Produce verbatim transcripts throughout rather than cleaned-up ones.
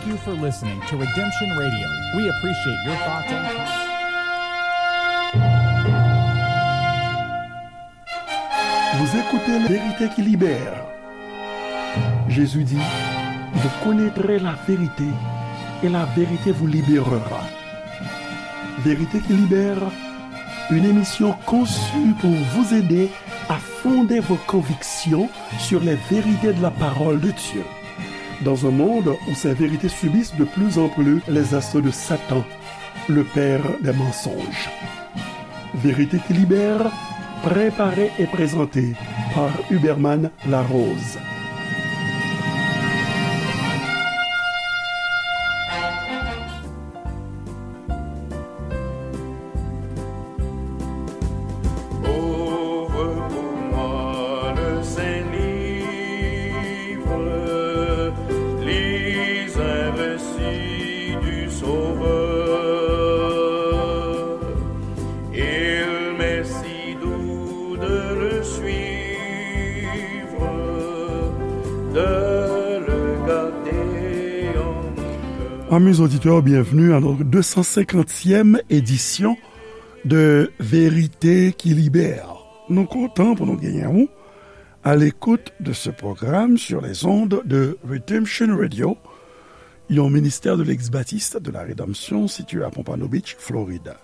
Thank you for listening to Redemption Radio. We appreciate your thoughts and comments. Vous écoutez La Vérité qui libère. Jésus dit, vous connaîtrez la vérité et la vérité vous libérera. Vérité qui libère, une émission conçue pour vous aider à fonder vos convictions sur les vérités de la parole de Dieu. Dans un monde où ces vérités subissent de plus en plus les assauts de Satan, le père des mensonges. Vérité qui libère, préparée et présentée par Huberman Larose. Ouvre pour moi le Saint-Livre, lis un récit du Sauveur. Il m'est si doux de le suivre, de le garder en mon cœur. Amis auditeurs, bienvenue à notre deux cent cinquantième édition de Vérité qui Libère. Nou kontan pou nou genyen ou à l'écoute de ce programme sur les ondes de Redemption Radio, yon ministère de l'ex-baptiste de la rédemption situé à Pompano Beach, Florida.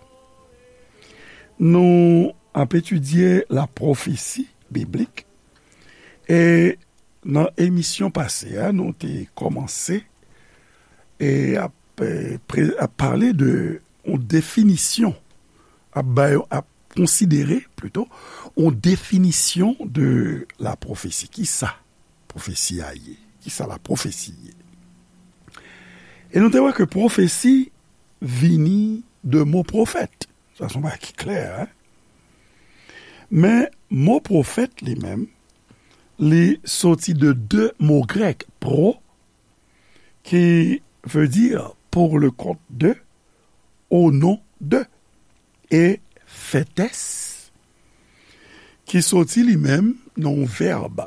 Nou ap etidye la pwofesi biblik. E nan emisyon pase a, nou te kòmanse e ap, e, pre-, ap pale de yon definisyon, ap bay, ap konsidere plito yon definisyon de la pwofesi. Kisa pwofesi a ye? Kisa la pwofesi ye? E nou te wè ke pwofesi vini de mo pwofèt. Sa se yon bagay ki klè, en? Men mo pwofèt li menm, li soti de de mo grèk, pro, ki vle di pour le compte de, au nom de, e fetes, ki soti li menm nan yon vèb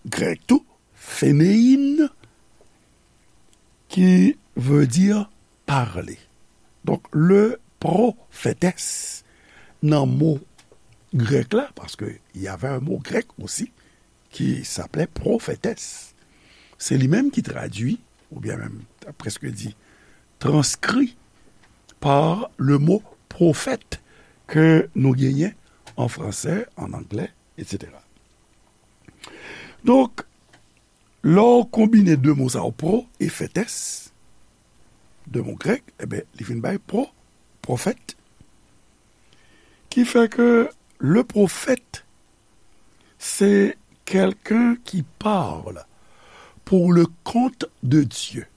grèk tou, phenein, ki vle di pale. Donk, le prophétesse, nan mo grèk la, paske y avait un mot grec aussi, qui s'appelait prophétesse. Se li menm ki tradui, oubyen menm, ta prèske di, transkri par le mot prophète ke nou genyen an fransè, an anglè, etsetera. Donk, lè w konbine de mo sa yo, pro e fetes, de mo grèk, ebyen, li vin bay pro, pwofèt, ki fè ke le prophète, c'est quelqu'un qui parle pour le compte de Dieu,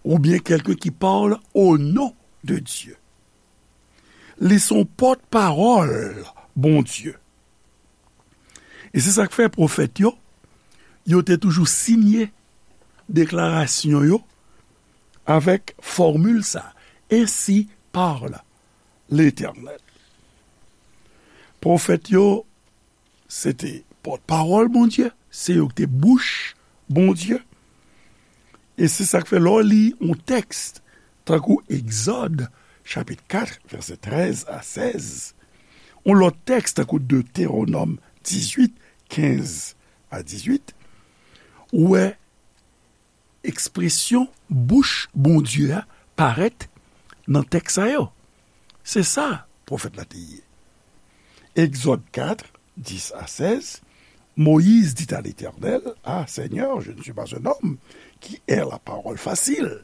oubyen quelqu'un qui parle au nom de Dieu. Li se yon pòtpawòl Bondye. E se sa k fè pwofèt yo, yo te toujou siyen deklarasyon yo avèk fòmil sa, Ainsi parle l'Éternel. Pwofèt yo, se te pòtpawòl Bondye, se yo ki te bouch Bondye. E se sa k fè lè w li yon tèks, tankou Egzòd, chapit kat, vèsè trèz a sèz, yon lòt tèks, tankou Detewonòm dizuit, kenz a dizuit, ou wè ekspresyon bouch Bondye a parèt nan tèks sa yo. Se sa pwofèt la te ye. Exode quatre, dix à seize, Moïse dit à l'Éternel, Ah Seigneur, je ne suis pas un homme qui ait la parole facile.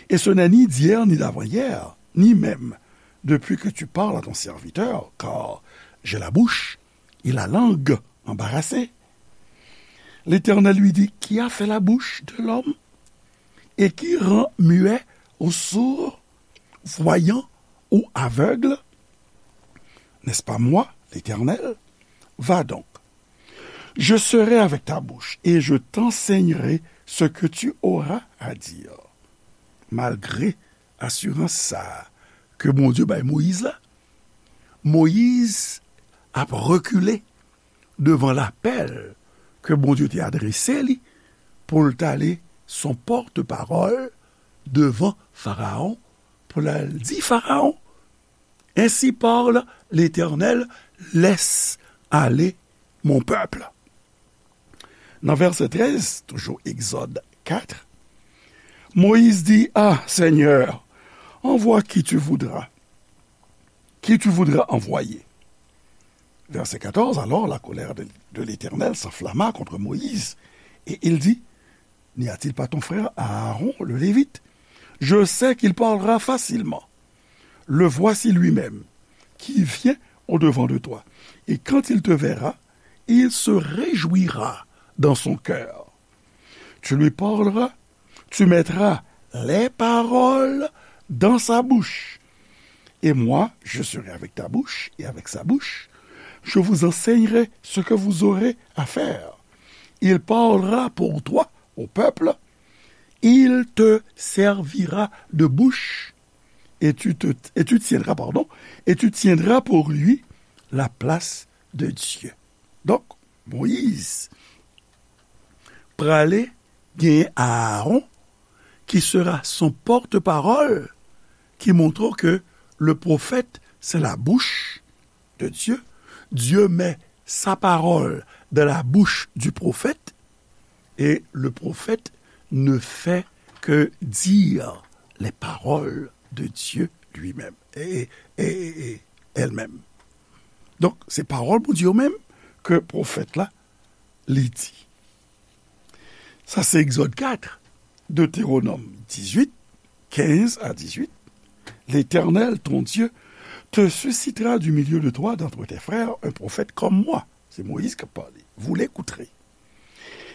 Et ce n'est ni d'hier ni d'avant-hier, ni même depuis que tu parles à ton serviteur, car j'ai la bouche et la langue embarrassées. L'Éternel lui dit, Qui a fait la bouche de l'homme? Et qui rend muet ou sourd, voyant ou aveugle? N'est-ce pas moi, l'Éternel? Va donc, je serai avec ta bouche et je t'enseignerai ce que tu auras à dire. Malgre asirans sa a ke Bondye bay Moyiz la, Moyiz ap rekile devan lapèl ke Bondye te adrese li pou l t ale son porte-parole devant Pharaon pou l al di Farawon, Ainsi parle l'Éternel, laisse aller mon peuple. Nan vèsè trèz, toujou Egzòd kat, Moïse dit, Ah, Seigneur, envoie qui tu voudras, qui tu voudras envoyer. Verset quatorze, Alors la colère de, de l'Éternel s'enflamma contre Moïse, et il dit, N'y a-t-il pas ton frère Aaron, le Lévite? Je sais qu'il parlera facilement. Le voici lui-même, qui vient au-devant de toi. Et quand il te verra, il se réjouira dans son cœur. Tu lui parleras, tu mettras les paroles dans sa bouche. Et moi, je serai avec ta bouche et avec sa bouche. Je vous enseignerai ce que vous aurez à faire. Il parlera pour toi au peuple. Il te servira de bouche et tu, te, et tu tiendras, pardon, et tu tiendras pour lui la place de Dieu. Donk, Moyiz prale genyen Aaron qui sera son porte-parole, qui montre que le prophète, c'est la bouche de Dieu. Dieu met sa parole dans la bouche du prophète et le prophète ne fait que dire les paroles de Dieu lui-même et, et, et, et elle-même. Donk, se pawòl Bondye yo menm ke pwofèt la li di. Sa se Egzòd kat, Deutéronome dix-huit, quinze à dix-huit. L'Éternel, ton Dieu, te suscitera du milieu de toi, d'entre tes frères, un prophète comme moi. Se Moyiz k ap pale. Vous l'écouterez.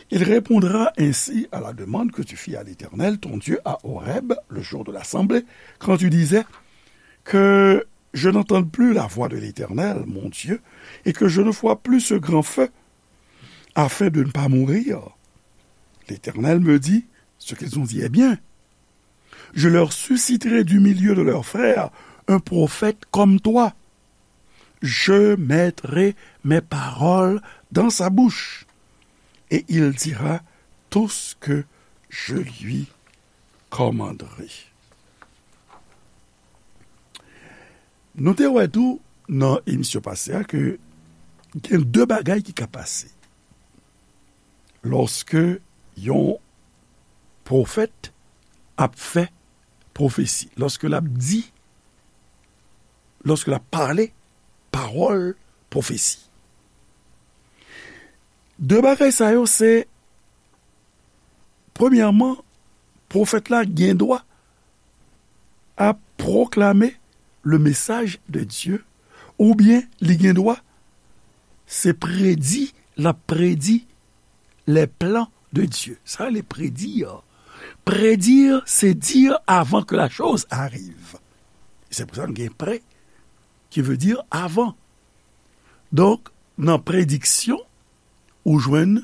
Il répondra ainsi à la demande que tu fis à l'Éternel, ton Dieu, à Horeb, le jour de l'assemblée, quand tu disais, Que je n'entende plus la voix de l'Éternel, mon Dieu, et que je ne voie plus ce grand feu, afin de ne pas mourir. L'Éternel me dit, Ce qu'ils ont dit est bien. Je leur susciterai du milieu de leurs frères un prophète comme toi. Je mettrai mes paroles dans sa bouche, et il dira tout ce que je lui commanderai. Nou te wè tou nan emisyon pase a ke gen de bagay ki ka pase lòske yon pwofèt ap fè pwofesi, lòske l ap di, lòske l ap pale pawòl pwofesi. De bagay sa yo se, premyèman, pwofèt la gen dwa ap pwoklame le message de Dieu, oubyen li gen dwa se predi, l ap predi les plans de Dieu. Sa rele predi. Predi, se di avan ke la choz arive. Se pou sa nou gen prè, ki vle di avan. Donk, nan prediksyon, ou jwenn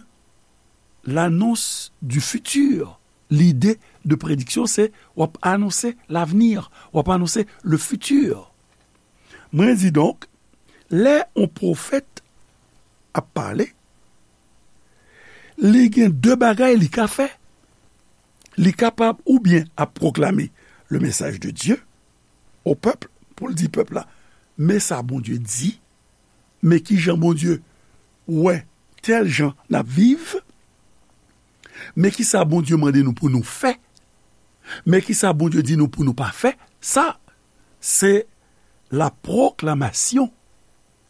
l'annonce du futur. Lide de prediksyon, se w ap anonse l'avenir, w ap anonse le futur. Mwen di donk, lè yon pwofèt ap pale, li gen de bagay li ka fè. Li kapab oubyen ap pwoklame le message de Dieu au peuple, pou l di pèp la, men sa Bondye di, men ki jan Bondye wè tèl jan n ap viv, men ki sa Bondye mande nou pou nou fè, men ki sa Bondye di nou pou nou pa fè. Sa, se la proclamation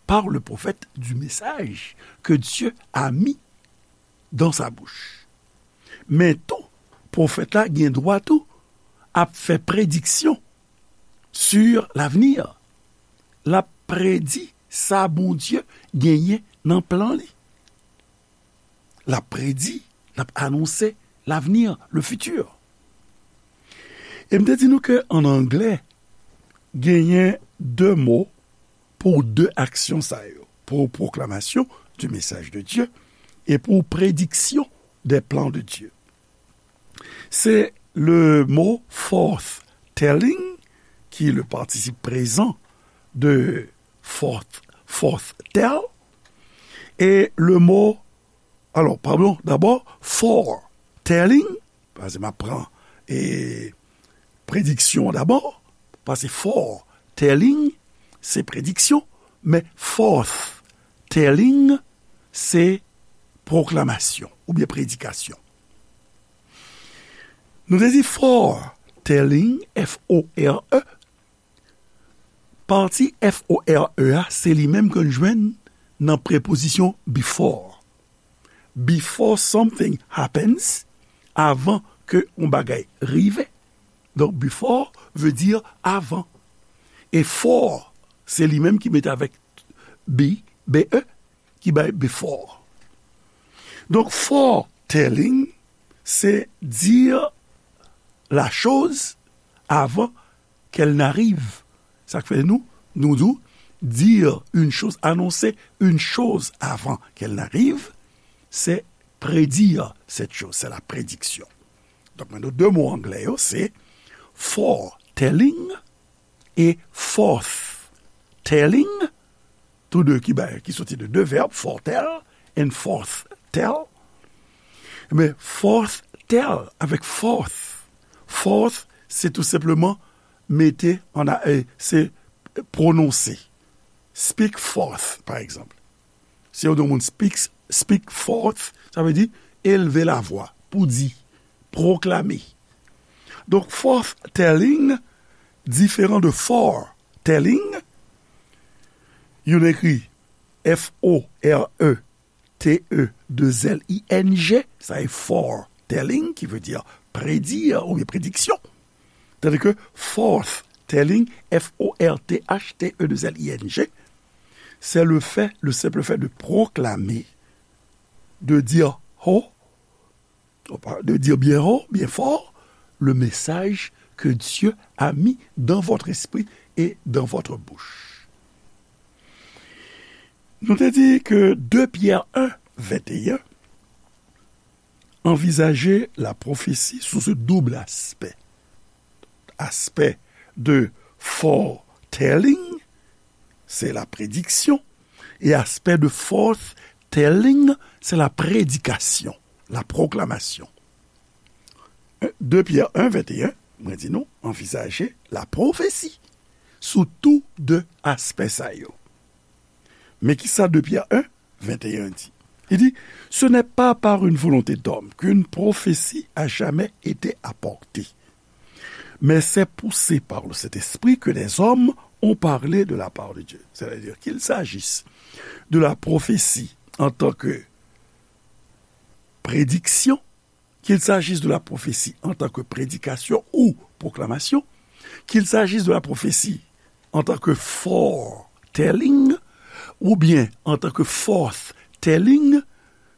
par le prophète du message que Dieu a mis dans sa bouche. Men tou, pwofèt la gen dwa tou ap fè prediksyon sur l'avenir. L ap predi sa Bondye genyen nan plan li. L ap predi, l ap anonse l'avenir, le futur. E m te di nou ke an anglè, genyen de mo pou de aksyon sa yo, pour proclamation du message de Dieu et pour prédiction des plans de Dieu. C'est le mot forth telling, qui est le participe présent de forth, forth tell, et le mot, alors, pardon, d'abord, fore telling, Paske m ap pran e, prediksyon an dabò, paske foretelling, se prediksyon, men forthtelling, se pwoklamasyon oubyen predikasyon. Nou te di foretelling, F O R E, pati F O R E a, se li menm ke n jwenn nan prepozisyon before. Before something happens, avan ke yon bagay rive. Donk, before vle di avan. E fore, se li menm ki mete avèk be, B E, ki bay before. Donk, foretelling, se dire la chose avant qu'elle n'arrive. Sa k fè nou, nou di w, dire une chose, annoncer une chose avant qu'elle n'arrive, c'est prédire cette chose, c'est la prédiction. Donk, men nou de mo anglè yo, se foretelling e forthtelling, tou de ki bay, ki soti de de vèb, foretell and forthtell. Men forthtell avèk forth. Forth, se tou senpleman mete an a, e, se pwononse. Speak forth, pa egzanp. Si yo di yon moun speak, speak forth, sa vle di elve lavwa, pou di, pwoklame. Donk, forthtelling diferan de foretelling. Youn ekri F O R E T E deux L I N G, sa e foretelling, ki vle di predi oubyen prediksyon. Tandis que forthtelling, F O R T H T E deux L I N G, c'est le fait, le simple fait de proclamer, de dire haut, de dire bien haut, bien fort, le message que Dieu a mis dans votre esprit et dans votre bouche. Nou te di ke de Pyè en, venteyen, anvizaje lapwofesi sou se doub aspè. Aspè de foretelling, se la prediksyon, e aspè de forthtelling, se la predikasyon, la pwoklamasyon. De Pyè en, venteyen, mwen di nou, anvizaje lapwofesi sou tou de aspè sa yo. Men kisa de Pyè en, venteyen di? Il dit, ce n'est pas par une volonté d'homme qu'une prophétie a jamais été apportée, mais c'est poussé par le Saint-Esprit que des hommes ont parlé de la part de Dieu. C'est-à-dire qu'il s'agisse de la prophétie en tant que prédiction, qu'il s'agisse de la prophétie en tant que prédication ou proclamation, qu'il s'agisse de la prophétie en tant que foretelling, ou bien en tant que forthtelling,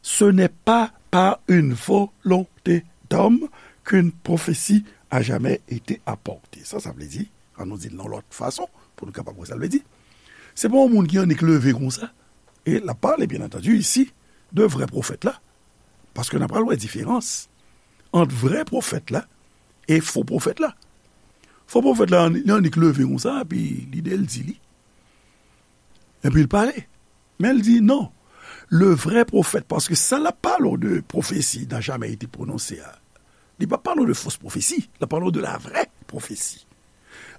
ce n'est pas par une volonté d'homme qu'une prophétie a jamais été apportée. Sa, sa vle di, an nou di l nan lòt fason, pou nou kapab wè sa l vle di. Se pa yon moun ki annik leve konsa, e l ap pale, byen antandi, isi, de vrè pwofèt la. Paske n ap pral wè diferans ant vrè pwofèt la e fo pwofèt la. Fo pwofèt la, li annik leve konsa, epi lide l di li. Epi l pale. Men l di non. Le vrai prophète, paske sa l ap pale w de pwofesi n'a jamais été prononcé a, li pa pale w de fos pwofesi, l ap pale w de la vraie prophétie.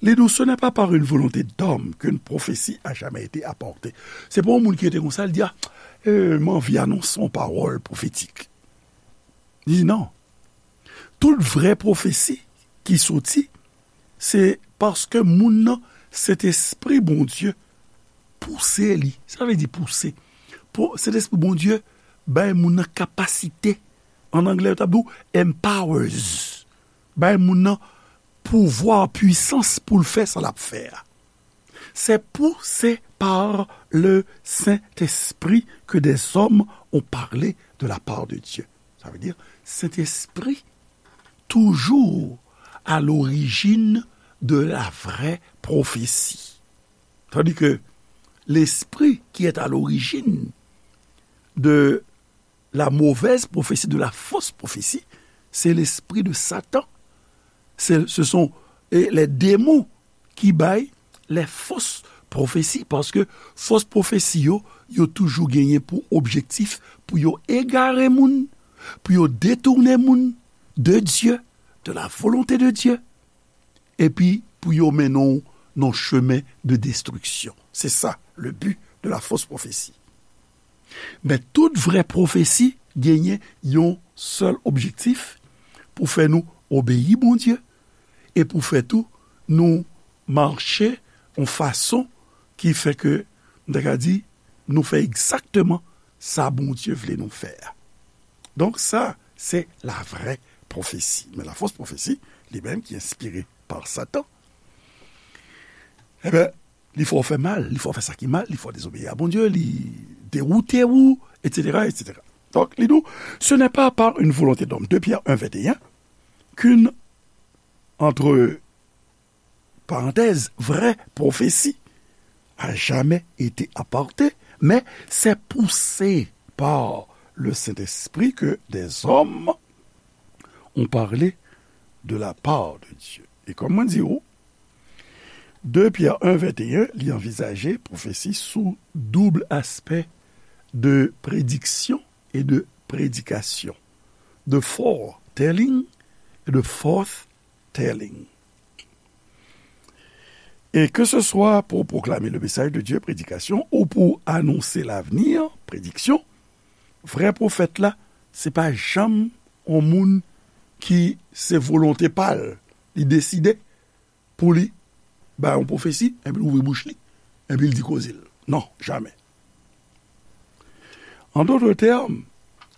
Li di w, ce n'est pas par une volonté d'homme qu'une prophétie a jamais été apportée. Se pa yon moun ki rete konsa, l di, a, e, m anvi anonse yon pawòl pwofetik. Li di non. Tout vrè pwofesi ki soti, se paske moun nan, Sentespri Bondye pouse li. Sa vle di pouse. Po-, Sentespri Bondye bay moun nan kapasite. An anglè, yo t ap di w empowers. Bay moun nan pouvwa, pwisans pou l fè sa l ap fè a. C'est poussé par le Saint-Esprit que des hommes ont parlé de la part de Dieu. Ça veut dire, Saint-Esprit, toujours à l'origine de la vraie prophétie. Tandis que l'esprit qui est à l'origine de la mauvaise prophétie, de la fausse prophétie, c'est l'esprit de Satan. C'est, ce sont, eh, les démons ki bay les fausses prophéties, paske fos pwofesi yo, yo toujou genyen pou objektif pou yo egare moun, pou yo detounen moun, de Dieu, de la volonté de Dieu, epi pou yo mennen w nan chemen de destriksyon. Se sa, le but de la fausse prophétie. Men tout vrè pwofesi genyen yon sèl objektif, pou fè nou obeyi Bondye e pou fè tou nou mache yon fason ki fè ke, m ta ka di, nou fè egzakteman sa Bondye vle nou fè a. Donk sa, se la vraie prophétie. Men la fausse prophétie, li menm ki enspire pa Satan, enben, li fè w fè mal, li fè w fè sa ki mal, li fè w dezobeyi a Bondye, li dewoute ou, et cetera, et cetera. Donc, li di w, ce n'est pas par une volonté d'homme, deux Pierre un vingt et un, qu'une, entre parenthèses, vraie prophétie a jamais été apportée, mais c'est poussé par le Saint-Esprit que des hommes ont parlé de la part de Dieu. E kòm mwen di w, deux Pierre un vingt et un, li anvizaje pwofesi sou doub aspè de prédiction et de prédication, de foretelling et de forth telling. Et que ce soit pour proclamer le message de Dieu, prédication, ou pour annoncer l'avenir, prédiction, vrè pwofèt la, se pa janm yon moun ki se volonte pa l, li deside pou li bay yon pwofesi, epi l ouvri bouch li, epi l di koze l. Non, jamè. An dòt tèm,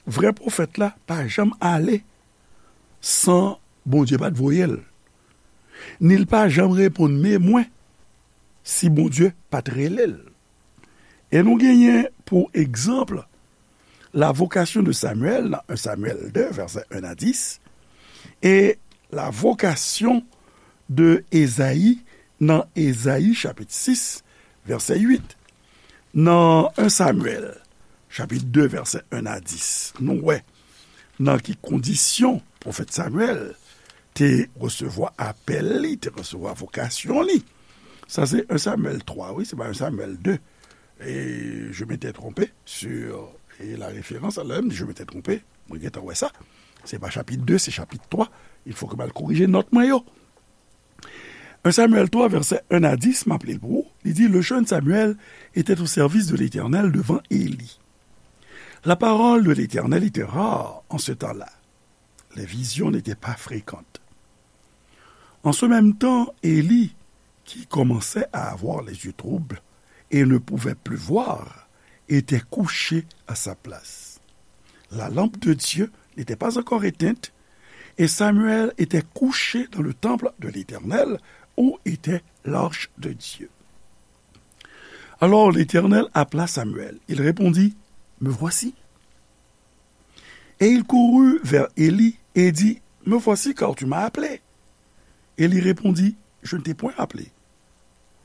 vrè pwofèt la pa janm ale san Bondye pa t voye l, ni l pa janm reponn men mwen si Bondye pa t rele l. E nou genyen pou egzanp la vocation de Samuel nan un Samuel deux, vèsè un a dis, e la vocation de Ezayi nan Ezayi chapit sis, vèsè uit. Nan un Samuel, chapit deux, vèsè un a dis, nou wè nan ki kondisyon pwofèt Samuel te resevwa apèl li, te resevwa vokasyon li. Sa se un Samuel twa, wi, se pa un Samuel deux. E je m'étais trompé sur, e la référence, alò, m di, je m'étais trompé, mwen gentan wè sa. Se pa chapit deux, se chapit twa. Il faut que m al korije nòt mwen yo. Un Samuel trois, vèsè un a dis, m ap li l pou ou. Li di, le jeune Samuel était au service de l'Éternel devant Élie. La parole de l'Éternel était rare en ce temps-là. Les visions n'étaient pas fréquentes. En ce même temps, Élie, qui commençait à avoir les yeux troubles et ne pouvait plus voir, était couché à sa place. La lampe de Dieu n'était pas encore éteinte, et Samuel était couché dans le temple de l'Éternel, où était l'arche de Dieu. Alors l'Éternel appela Samuel. Il répondit, me voici. Et il courut vers Élie et dit, me voici, car tu m'as appelé. Élie répondit, je ne t'ai point appelé.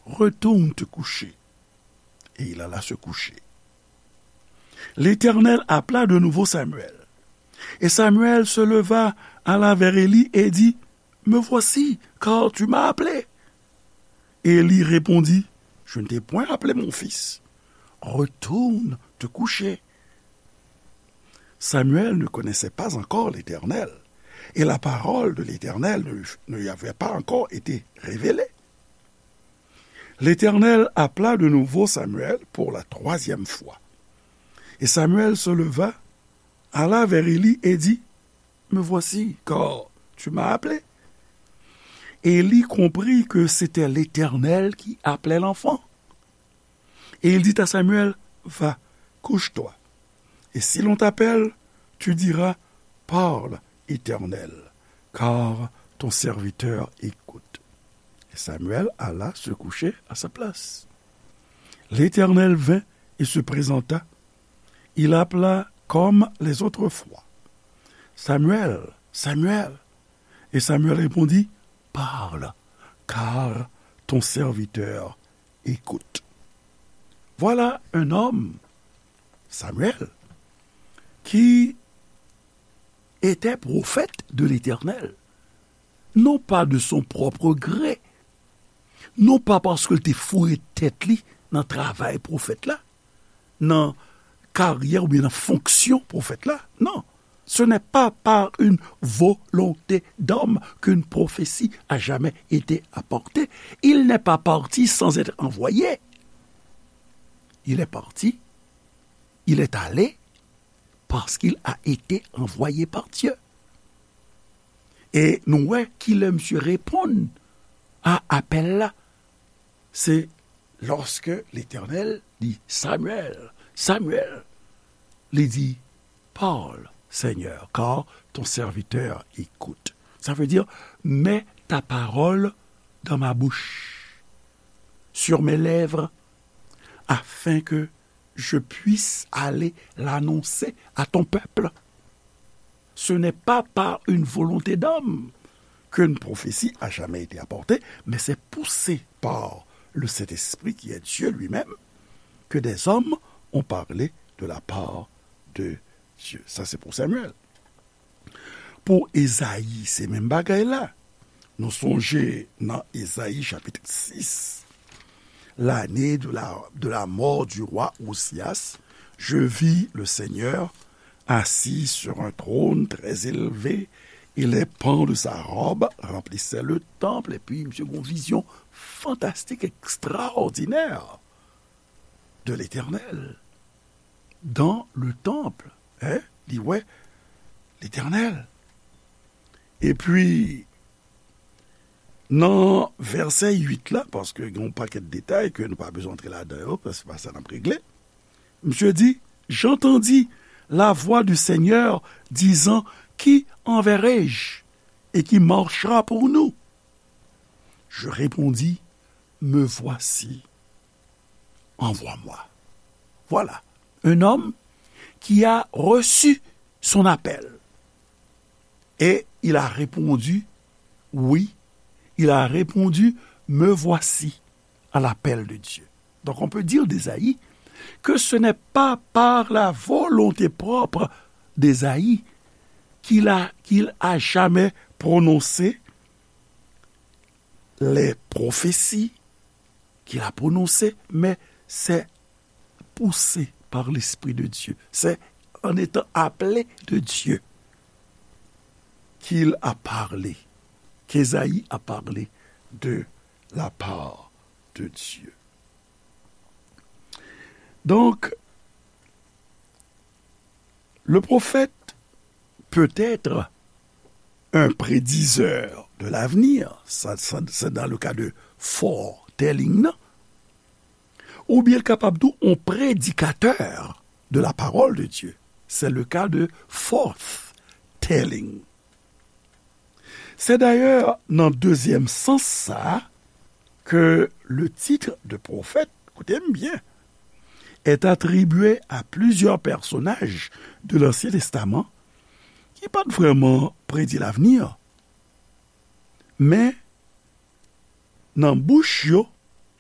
Retourne te coucher. Et il alla se coucher. L'Éternel appela de nouveau Samuel. Et Samuel se leva, alla vers Élie et dit, me voici, car tu m'as appelé. Et Élie répondit, je ne t'ai point appelé, mon fils. Retourne te coucher. Samuel ne connaissait pas encore l'Éternel, et la parole de l'Éternel ne, ne lui avait pas encore été révélée. L'Éternel appela de nouveau Samuel pour la troisième fois. Et Samuel se leva, alla vers Élie et dit, me voici, car tu m'as appelé. Et Élie comprit que c'était l'Éternel qui appelait l'enfant. Et il dit à Samuel, va, couche-toi. Et si l'on t'appelle, tu diras, parle, Éternel, car ton serviteur écoute. Et Samuel alla se coucher à sa place. L'Éternel vint et se présenta. Il appela comme les autres fois. Samuel, Samuel. Et Samuel répondit, parle, car ton serviteur écoute. Voilà un homme, Samuel, qui était prophète de l'Éternel, non pas de son propre gré, non pas paske l te foure tèt li nan travay pwofèt la, nan karyè oubyen nan fonksyon pwofèt la, non. Ce n'est pas par une volonté d'homme qu'une prophétie a jamais été apportée. Il n'est pas parti sans être envoyé. Il est parti, il est allé parce qu'il a été envoyé par Dieu. E nou wè kilè misye reponn a apèl la. Se lòske Letènèl di, Samuel, Samuel, li di, parle, Seigneur, car ton serviteur écoute. Ça veut dire, mets ta parole dans ma bouche, sur mes lèvres, afin que je puisse aller l'annoncer à ton peuple. Ce n'est pas par une volonté d'homme qu'une prophétie a jamais été apportée, mais c'est poussé par le Saint-Esprit qui est Dieu lui-même que des hommes ont parlé de la part de Dieu. Ça, c'est pour Samuel. Pou Ezayi, se menm bagay la. Nou sonje nan Ezayi chapit sis, l'année de la, de la mort du roi Osias, je vis le Seigneur assis sur un trône très élevé, et les pans de sa robe remplissaient le temple. Epi, misye gen yon vizyon fantastik, ekstraòdinè de Letènèl dans le temple. Hein? Li wè Letènèl. Epi, nan vèsè uit la, paske gen yon pakèt detay ke nou pa bezwen antre ladan yo, paske se pa sa n ap regle. Misye di, j'entendis la voix du Seigneur disant, qui enverrai-je et qui marchera pour nous? Je répondis, me voici, envoie-moi. Voilà, un homme qui a reçu son appel. Et il a répondu, oui, il a répondu, me voici à l'appel de Dieu. Donc on peut dire d'Ésaïe que ce n'est pas par la volonté propre d'Ésaïe qu'il a, qu'il a jamais prononcé les prophéties qu'il a prononcées, mais c'est poussé par l'Esprit de Dieu. C'est en étant appelé de Dieu qu'il a parlé, qu'Ésaïe a parlé de la part de Dieu. Donc, le prophète peut être un prédiseur de l'avenir, sa, sa, c'est dans le cas de foretelling, non? Oubyen l kapab tou yon predikatè de la parole de Dieu. C'est le cas de forth telling. C'est d'ailleurs nan dezyèm sans sa a que le titre de prophète, écoutez-moi bien, est attribué à plusieurs personnages de l'Ancien Testament ki pa t vrèman predi lavni, men nan bouch yo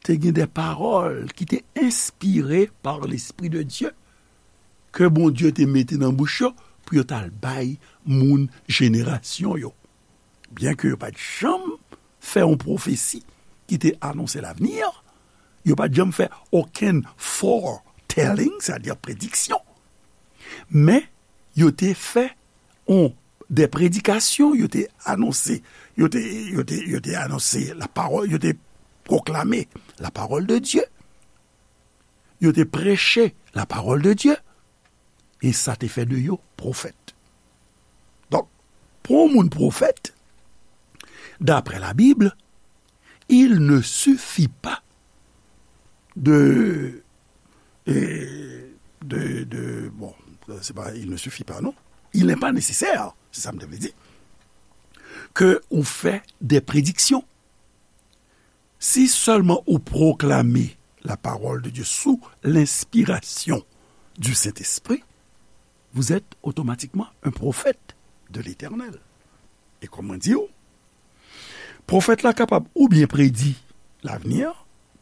te gen de pawòl ki te enspire par l'Esprit de Dieu, ke Bondye te mete nan bouch yo pou yo t al bay moun jenerasyon yo. Byen ke yo pa t janm fè yon pwofesi ki te anonse lavni, yo pa t janm fè okenn foretelling, sètadi prediksyon, men yo te fè yon, de predikasyon, yo te anonse, yo te, yo te, yo te anonse la parole, yo te pwoklame la parole de Dieu, yo te preche la parole de Dieu, e sa te fè de yo pwofèt. Donk, pou yon moun pwofèt, d'après la Bible, il ne suffit pas de, euh, de, de, bon, c'est pas, il ne suffit pas, non. Il n'est pas nécessaire, c'est ça que je veux dire, que on fait des prédictions. Si seulement on proclame la parole de Dieu sous l'inspiration du Saint-Esprit, vous êtes automatiquement un prophète de l'Éternel. E kòman di w, pwofèt la kapab oubyen predi lavni,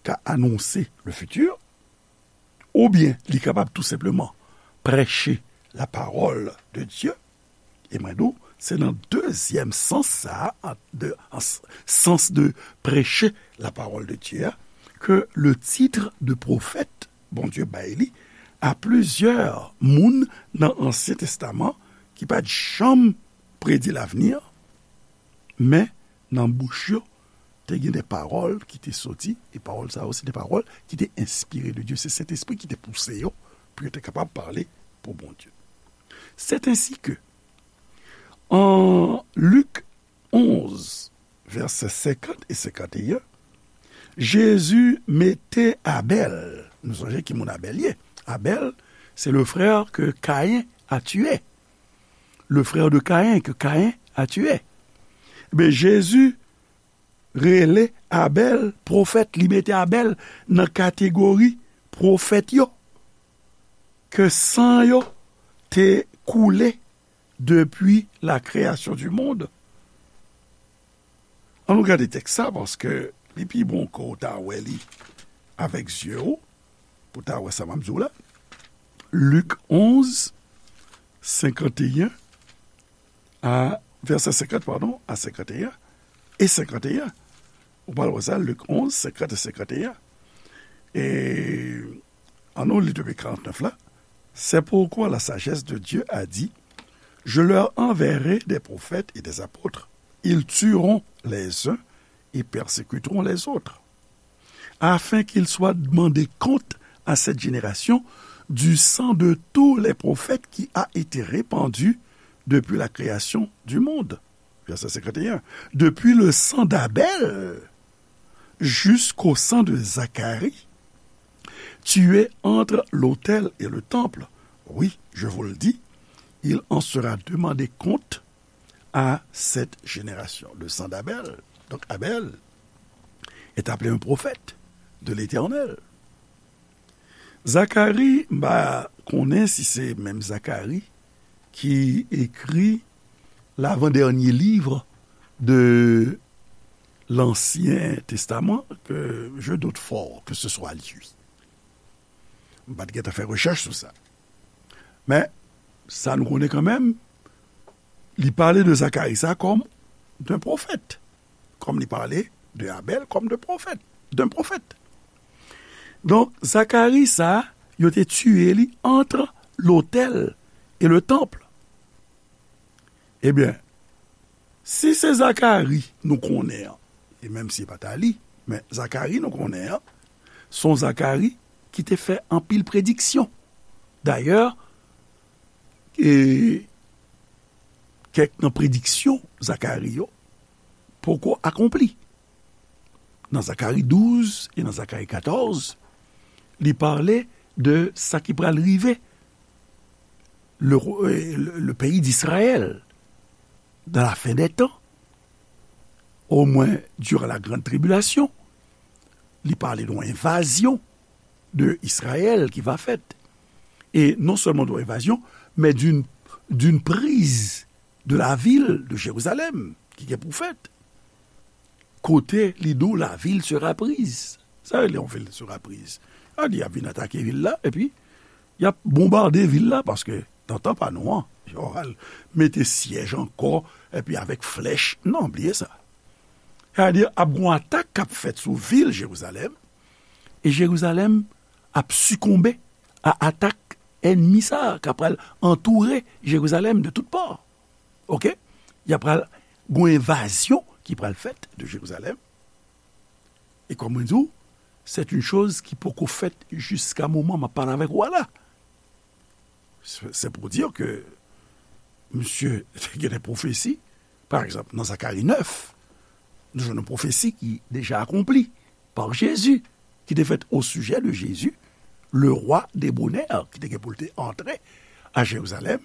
ka anonse le futur, oubyen li kapab tou senpleman preche la parole de Dieu. E mwen di w, se nan dezyèm sans sa a, an, de, an s-, sans de preche la parole de Dieu a, ke le titre de prophète Bondye bay li a plizyè moun nan Ansyen Testaman Li pa t janm predi lavni an, men nan bouch yo, te gen de pawòl ki te soti, e pawòl sa yo, se de pawòl ki te enspire de Dye. Se Sentespri ki te pouse yo pou yo te kapab pale pou Bondye. C'est ainsi que, en Luc onze, vèsè senkant e senkant e en, Jezi mete Abèl, nou sonje ki moun Abèl ye. Abèl, c'est le frère que Caïn a tué. Le frère de Caïn que Caïn a tué. Ebyen, Jezi rele Abèl pwofèt, li mete Abèl nan kategori pwofèt yo, ke san yo te koule depi la création du monde. Ann nou gade tèks sa, paske li pi bon ke w ta wè li avèk zye w, pou w ta wè sa m ap di w la. Lik onz, senkanteyen a, vèsè senkant, padon, a senkanteyen e senkanteyen. Ou pral wè sa, Lik onz, senkant e senkanteyen. E ann nou li depi karantnèf la. C'est pourquoi la sagesse de Dieu a dit, je leur enverrai des prophètes et des apôtres. Ils tueront les uns et persécuteront les autres, afin qu'il soit demandé compte à cette génération du sang de tous les prophètes qui a été répandu depuis la création du monde. Verset cinquante et un. Depuis le sang d'Abel jusqu'au sang de Zacharie, tué entre l'autel et le temple. Oui, je vous le dis, il en sera demandé compte à cette génération. Le sang d'Abel. Donc Abel est appelé un prophète de l'Éternel. Zakari, m pa konnen si se menm Zakari ki ekri l'avant-dernier livre de l'Ancien Testament, que je doute fort que ce soit lui. M pa t gentan fè rechèch sou sa. Men, sa nou konnen kanmenm, li pale de Zakari sa kòm d'un prophète, kòm li pale de Abèl kòm de pwofèt, d'un prophète. Donk, Zakari sa, yo te tiye li entre l'autel et le temple. Ebyen, si se Zakari nou konnen an, e menm si e pa ta li, men Zakari nou konnen an, se yon Zakari ki te fè anpil prediksyon. Dayè, e kèk nan prediksyon Zakari yo poko akonpli. Nan Zakari douz e nan Zakari katòz, li pale de sa ki pral rive le, le, le pays d'Israël dans la fin des temps, au moins durant la grande tribulation. Li pale de yon envazyon de Israël ki va fèt. E non sèlman de yon envazyon, men d'une, d'une prise de la ville de Jérusalem ki gen pou fèt. Kote li di w la ville sera prise. Sa rele yon ville sera prise. Sa di y ap vin atake vil la, epi y ap bonbade vil la, paske nan tan pa nou an, yo al mete syèj ankò, epi avèk flèch. Non, bliye sa. Sa di ap gon atak k ap fèt sou vil Jerizalèm, e Jerizalèm ap sikonbe a atak ènmi sa a k ap pral antoure Jerizalèm de tout pò. Oke? Y ap pral gon envazyon ki pral fèt de Jerizalèm. E kòm mwen di w, c'est une chose ki poko fèt jiska moman m ap pale avèk ou a la. C'est, c'est pour dire que misye te gen de pwofesi. Pa egzanp, nan Zakari nèf, nou jwenn yon pwofesi ki deja akonpli par Jésus, ki te fèt au sujet de Jésus, le roi débonnaire, ki te gen pou l te antre a Jerizalèm,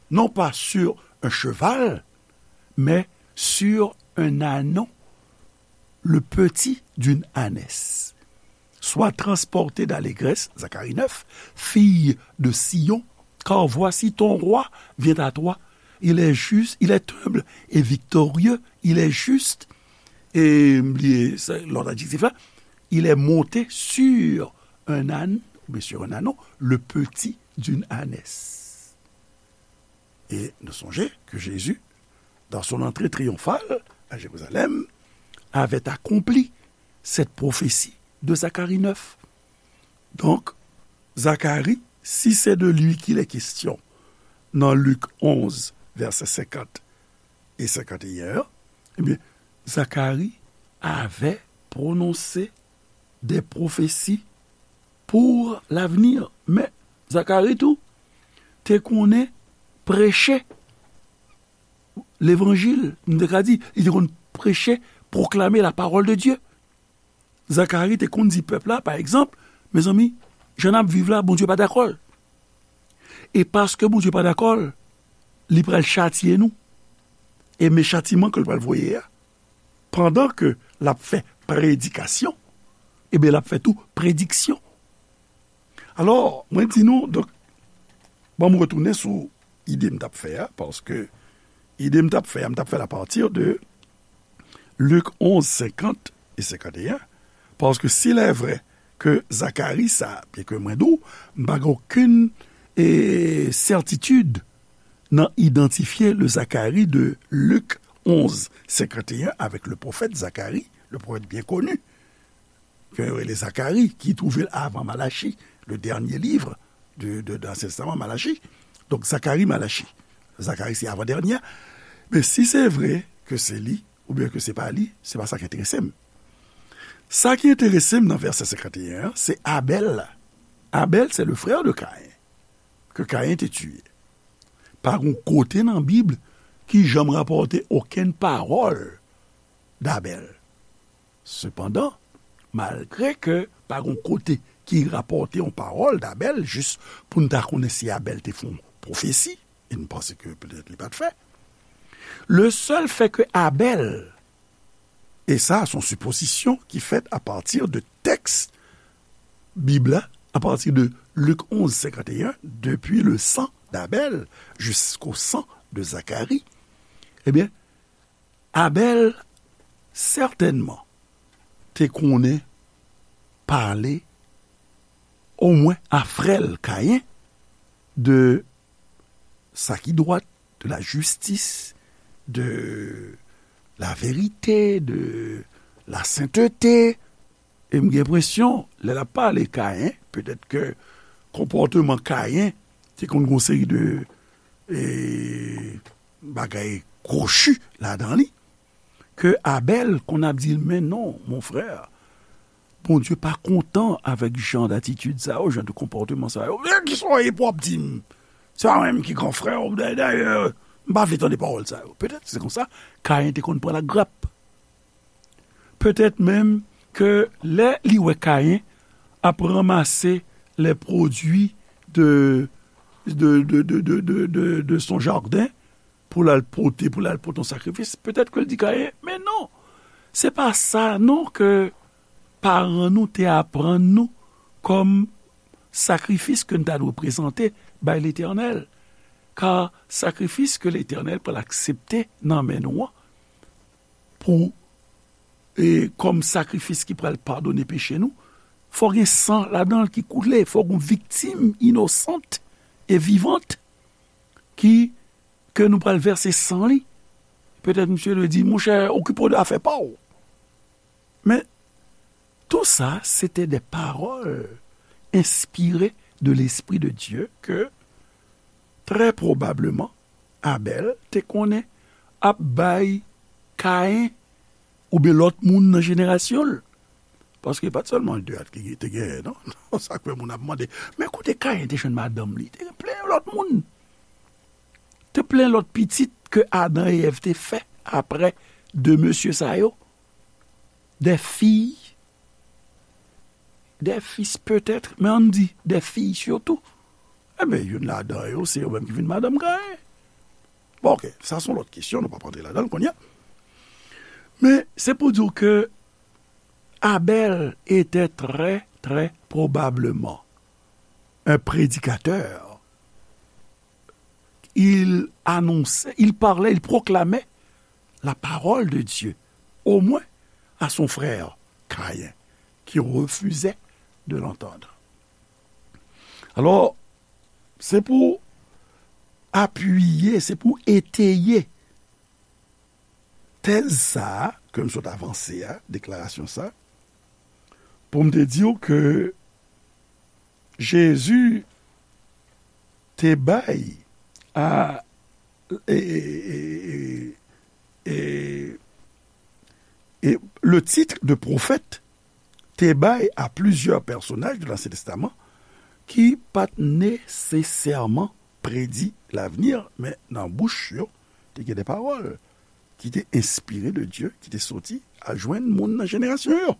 non pas sur un cheval, mais sur un ânon, le petit d'une ânesse. Sois transporté d'allégresse, Zacharie neuf, fille de Sion, car voici ton roi vient à toi. Il est juste, il est humble et victorieux, il est juste, e m bliye sa, lòt adjektif la, il est monté sur un âne, oubyen sur un ânon, le petit d'une ânesse. Et nous songeons que Jésus, dans son entrée triomphale à Jérusalem, avait accompli cette prophétie de Zacharie neuf. Donc, Zacharie, si c'est de lui qu'il est question nan Lik onz, vèsè senkant e senkanteyen an, ebyen, Zakari avè pwononse de pwofesi pou lavni. Men, Zakari tou te konnen preche levanjil, m te ka di, li te konn preche, pwoklame la parole de Dieu. Zakari te konn di pèp la, pa egzanp, mezanmi, jan n ap viv la, Bondye pa dakò l. E paske Bondye pa dakò l, li pral chatye nou. E men chatiman ke l pral voye a, pandan ke l ap fè predikasyon, ebyen, l ap fè tou prediksyon. Alò, mwen di nou, donk, ban m retounen sou ide m t ap fè a, paske ide m t ap fè a, m t ap fè l apati de Lik onz, senkant e senkanteyen, paske si lè vrè ke Zakari sa, byen ke mwen di w, m pa gen okenn, e, sètitid nan idantifye le Zakari de Lik onz, senkanteyen avèk le pwofèt Zakari, le pwofèt byen koni, ke yo rele Zakari, ki twouve l avan Malachi, le dènye liv de, de, de Ansyen Testaman, Malachi. Donk, Zakari, Malachi. Zakari, se avan dènye. Men si se vre ke se li, oubyen ke se pa li, se pa sa ki enterese m. Sa ki enterese m nan vèsè senkanteyen an, se Abèl la. Abèl, se le frè de Kayen, ke Kayen te tiye. Pa gon kote nan Bib ki janm rapòte okenn pawòl d'Abèl. Sepandan, malgre ke pa gon kote ki rapòte yon pawòl d'Abèl, jis pou n ta konnen si Abèl te fè yon pwofesi, e n panse ke petèt li pa t fè. Le sèl fè ke Abèl, e sa, se yon sipozisyon ki fèt apati de tèks Bib la, apati de Lik onz, senkanteyen, depi le sang d'Abèl jusqu'au sang de Zacharie, ebyen, Abèl sètènman te konnen pale omwen a frè l Kayen de sa ki dwat, de la jistis, de la verite, de la sentete. E m gen enpresyon, lè l ap pale Kayen, petèt ke konpòteman Kayen te konn gon seri de, e, bagay kwochi ladan li, ke Abèl konn ap di l, men non, mon frè, Bondye pa kontan avèk jan datitid sa yo, jan de konpòteman sa yo. Men kisa w ye pou w ap di m? Se pa mwen menm ki gran frè w, dayè, dayè, m pa vle tande pawòl sa yo. Petèt se konsa, Kayen te konn pran lagrap. Petèt menm ke lè li wè Kayen ap ranmase les produits de, de, de, de, de, de, de son jardin, pou l al pote, pou l al pote yon sakrifis, petèt ke l di Kayen, men non, se pa sa non ke paran nou te aprann nou kòm sakrifis ke n ta dwe prezante bay Letènèl. Ka sakrifis ke Letènèl pral aksepte nan men nou an, pou, e, kòm sakrifis ki pral padone peche nou, fò gen san ladan l ki koule, fò gen viktim inosant e vivant ki, ke nou pral vèse san li. Petèt misye dwe di, monchè, okipe w de afè pa w. Men, tou sa, se te de pawòl enspire de Lespri de Dye ke, trè pwobableman, Abèl te konnen ap bay Kayen oubyen lòt moun nan jenerasyon l. Paske pa t sèlman de a ki te genyen, non? Sa k fè moun ap mande, men kote Kayen te jwenn madanm li? Te gen plen lòt moun. Te plen lòt pitit ke Adan e Èv te fè apre de mesye sa yo. Des filles, des fils peut-être, men ann di, des filles surtout. Enben, youn ladan yo, se yo menm ki vin madanm Kayen. Bon, oke, sa se yon lòt kesyon, nou p ap rantre ladan l kounye a. Men, se pou di w ke Abèl était très, très probablement un prédicateur. Il annonçait, il parlait, il proclamait la parole de Dieu, au moins à son frère Caïn, qui refusait de l'entendre. Alò, se pou apiye, se pou eteye tèz sa a ke m sot avanse a, deklarasyon sa, pou m te di w ke Jezi te bay a, e, e, e, e, e, e le titre de prophète te bay a plizyè pèsonaj de l'Ancien Testament ki pa t nesesèman predi lavni, men nan bouch yo, te gen de pawòl ki te enspire de Dye, ki te soti al jwenn moun nan jenerasyon yo.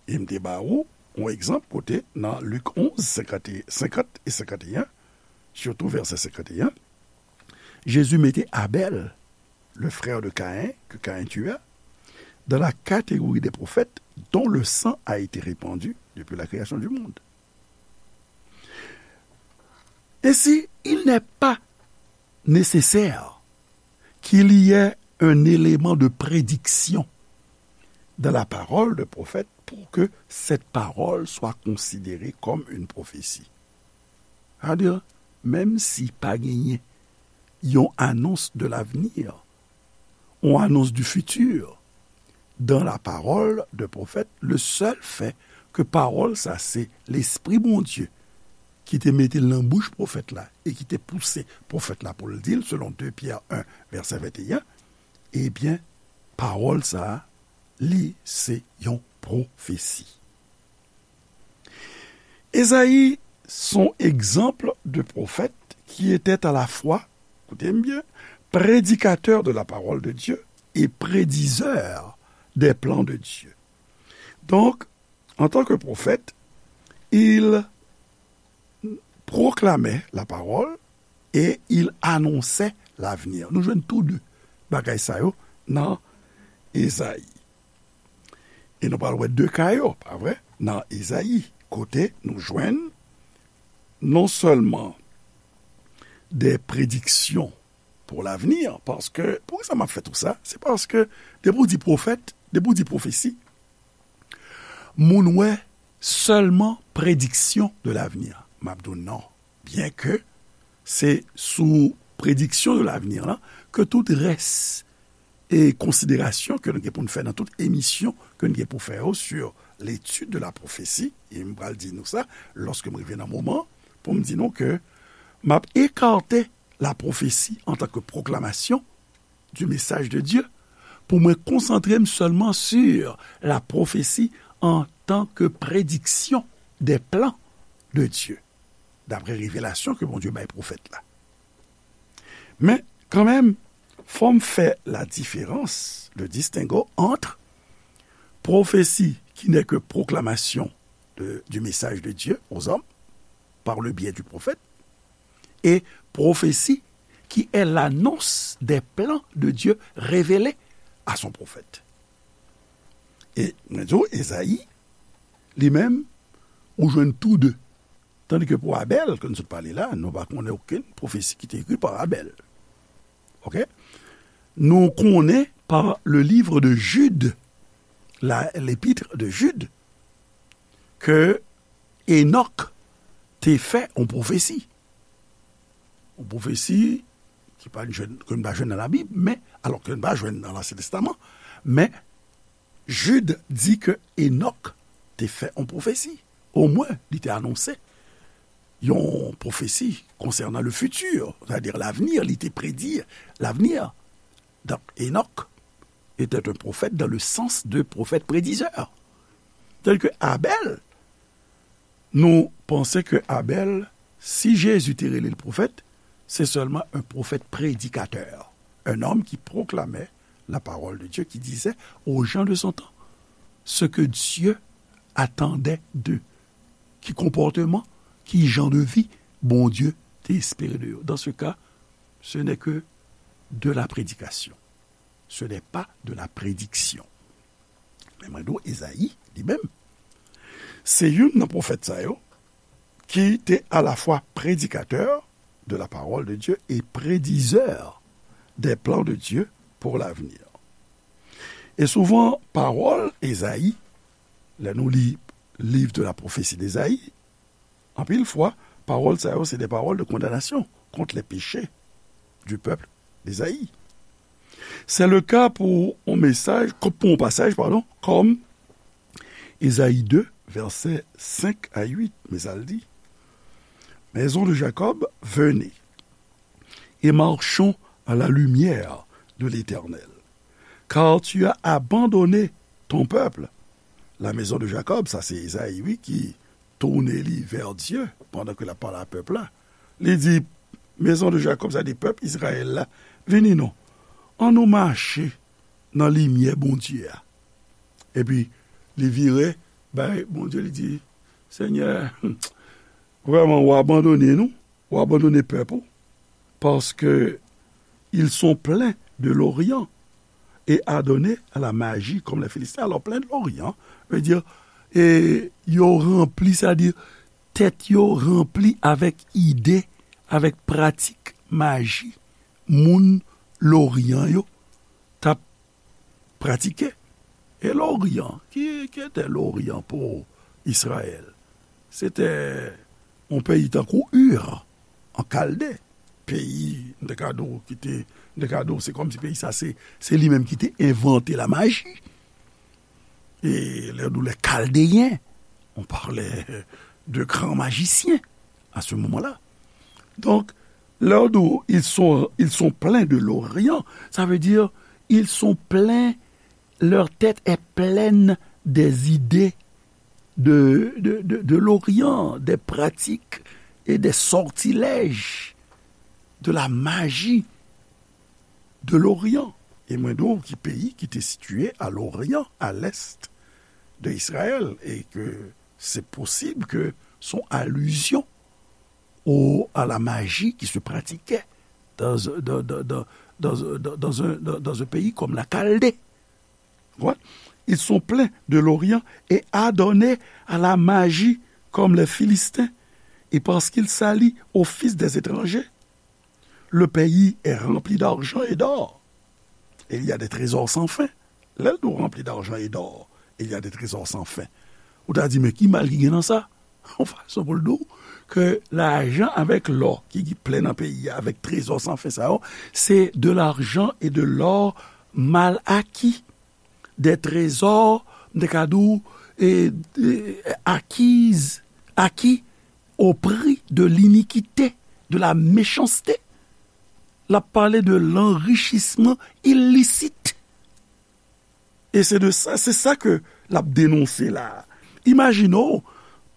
E m te ba ou yon egzanp kote nan Lik onz, senkant e, senkant e senkanteyen, sitou vèsè senkanteyen, Jezi mete Abèl, le frère de Caïn, que Caïn tua, dans la catégorie des prophètes dont le sang a été répandu depuis la création du monde. Ainsi, il n'est pas nécessaire qu'il y ait un élément de prédiction dans la parole de prophète pour que cette parole soit considérée comme une prophétie. Sa vle di, menm si pa genyen yon annonce de l'avenir, yon annonce du futur, dans la parole de prophète, le seul fait que pawòl sa se Lespri Bondye ki te mete l nan bouch pwofèt la e ki te pouse pwofèt la pou l di l, selon de Pyè en, vèsè venteyen, ebyen, pawòl sa a, li se yon pwofesi. Ezayi se yon egzanp de pwofèt ki était à la fois, koute m byen, prédicateur de la parole de Dieu et prédiseur des plans de Dieu. Donc, en tant que prophète, il proclamait la parole et il annonçait l'avenir. Nou jwenn tou de bagay sa yo nan Ezayi. E nou pral wè de ka yo, pa vre? Nan Ezayi, kote nou jwenn non sèlman de prediksyon pou lavni, paske, poukisa m ap fè tou sa? Se paske, depi w di pwofèt, depi w di pwofesi, moun wè sèlman prediksyon de lavni. M ap di w non. Byen ke se sou prediksyon de lavni la ke tout rès e konsiderasyon ke nou gen pou n fè nan tout emisyon ke nou gen pou fè yo sur l'étude de la prophétie, e m pral di nou sa, lòske m rive nan moman, pou m di nou ke m ap ekate la prophétie en tant que proclamation du message de Dieu, pou mwen konsantre m sèlman sur la prophétie en tant que prédiction des plans de Dieu, d'après révélation ke Bondye bay pwofèt la. Men, kanmenm, fò m fè la différence, le distinguo entre prophétie qui n'est que proclamation de, du message de Dieu aux hommes par le biais du prophète et prophétie qui est l'annonce des plans de Dieu révélés à son prophète. E mwen di w, Ezayi, li menm, ou jwenn tou de. Tandis que pou Abèl, ke nou sot pale la, nou pa konnen okenn pwofesi ki te ekri pa Abèl. Oke? Nou konnen par le livre de Jude, la, l'épître de Jude, ke Enòk te fè yon pwofesi. Yon pwofesi ki pa jwenn, ke n pa jwenn nan Labib, men, alò ke n pa jwenn nan Lansyen Testaman, men Jid di ke Enòk te fè yon pwofesi. Omwen, li te anonse yon pwofesi konsènan le futur, c'est-à-dire l'avenir, li te predi l'avenir. Donc, Enoch était un prophète dans le sens de prophète prédiseur. Tel que Abel, nou panse ke Abel, si Jezi te rele l pwofèt, se sèlman un prophète prédicateur, un homme qui proclamait la parole de Dieu, qui disait aux gens de son temps ce que Dieu attendait d'eux. Ki konpòteman, ki jan de vi Bondye te espere de yo. Dans ce cas, ce n'est que de la prédication. Ce n'est pas de la prédiction. Men mwen di w, Ezayi, li menm, se youn nan pwofèt sa yo ki te alafwa predikatè de la parole de Dieu et prédiseur des plans de Dieu pour l'avenir. E souvan, pawòl Ezayi, lè nou li Livre de la prophétie d'Ésaïe, anpil fwa, pawòl sa yo se de pawòl de kondanasyon kont les péchés du peuple d'Ésaïe. C'est le cas pour un message, pour un passage, pardon, comme Ésaïe deux, versets cinq à huit, men sa l di, Maison de Jacob, venez, et marchons à la lumière de l'Éternel. Car tu as abandonné ton peuple. La maison de Jacob, sa se Ezayi, wi, ki tounen li vè Dye pandan ke l ap pale a pèp la. Li di, maison de Jacob, sa di pèp Izrayèl la, vini non, ann nou mache nan limyè Bondye a. Epi, li vire bay Bondye, li di, Senyè, vrèman, ou abandone nou, ou abandone pèp ou, parce que ils sont pleins de l'Orient et adonnés à la magie comme les Philistins. Alors, plein de l'Orient veut dire, e yo ranpli, sa di, tèt yo ranpli avèk ide, avèk pratik maji moun Loryan yo t ap pratike. E Loryan, ki, ki te Loryan pou Izrayèl? Se te yon peyi tankou Ur, an Kalde. Peyi, m te ka di w, ki te, m te ka di w, se kòmsi peyi sa, se, se li menm ki te envante la maji. E lè nou, les Chaldéens, on parlait de grands magiciens à ce moment-là. Donc, lè nou, ils sont, ils sont pleins de l'Orient, ça veut dire, ils sont pleins, leur tête est pleine des idées de, de, de, de l'Orient, des pratiques et des sortilèges de la magie de l'Orient. E mwen di w ki peyi ki te sitiye à l'Orient, à l'est de Israël, et que c'est possible que son allusion au, à la magie qui se pratiquait dans, dans, dans, dans, dans, dans, dans un, dans, dans un pays comme la Chaldée. Ouais. Ils sont pleins de l'Orient et adonnés à la magie comme les Philistins, et parce qu'ils s'allient aux fils des étrangers. Le pays est rempli d'argent et d'or. Et il y a des trésors sans fin. Lè l di w rempli d'argent et d'or, il y a des trésors sans fin. Ou ta di, men ki mal ki gen nan sa? Yon fason pou l di w ke lajan avèk lò ki, ki plen nan peyi a, avèk trezò san fen sa yo, se de l'argent et de l'or mal acquis. Des trésors, m te ka di w, e, e, acquis, acquis au prix de l'iniquité, de la méchanceté. L ap pale de l'enrichissement illicite. E se de sa, se sa ke l ap denonse la. Imajine w,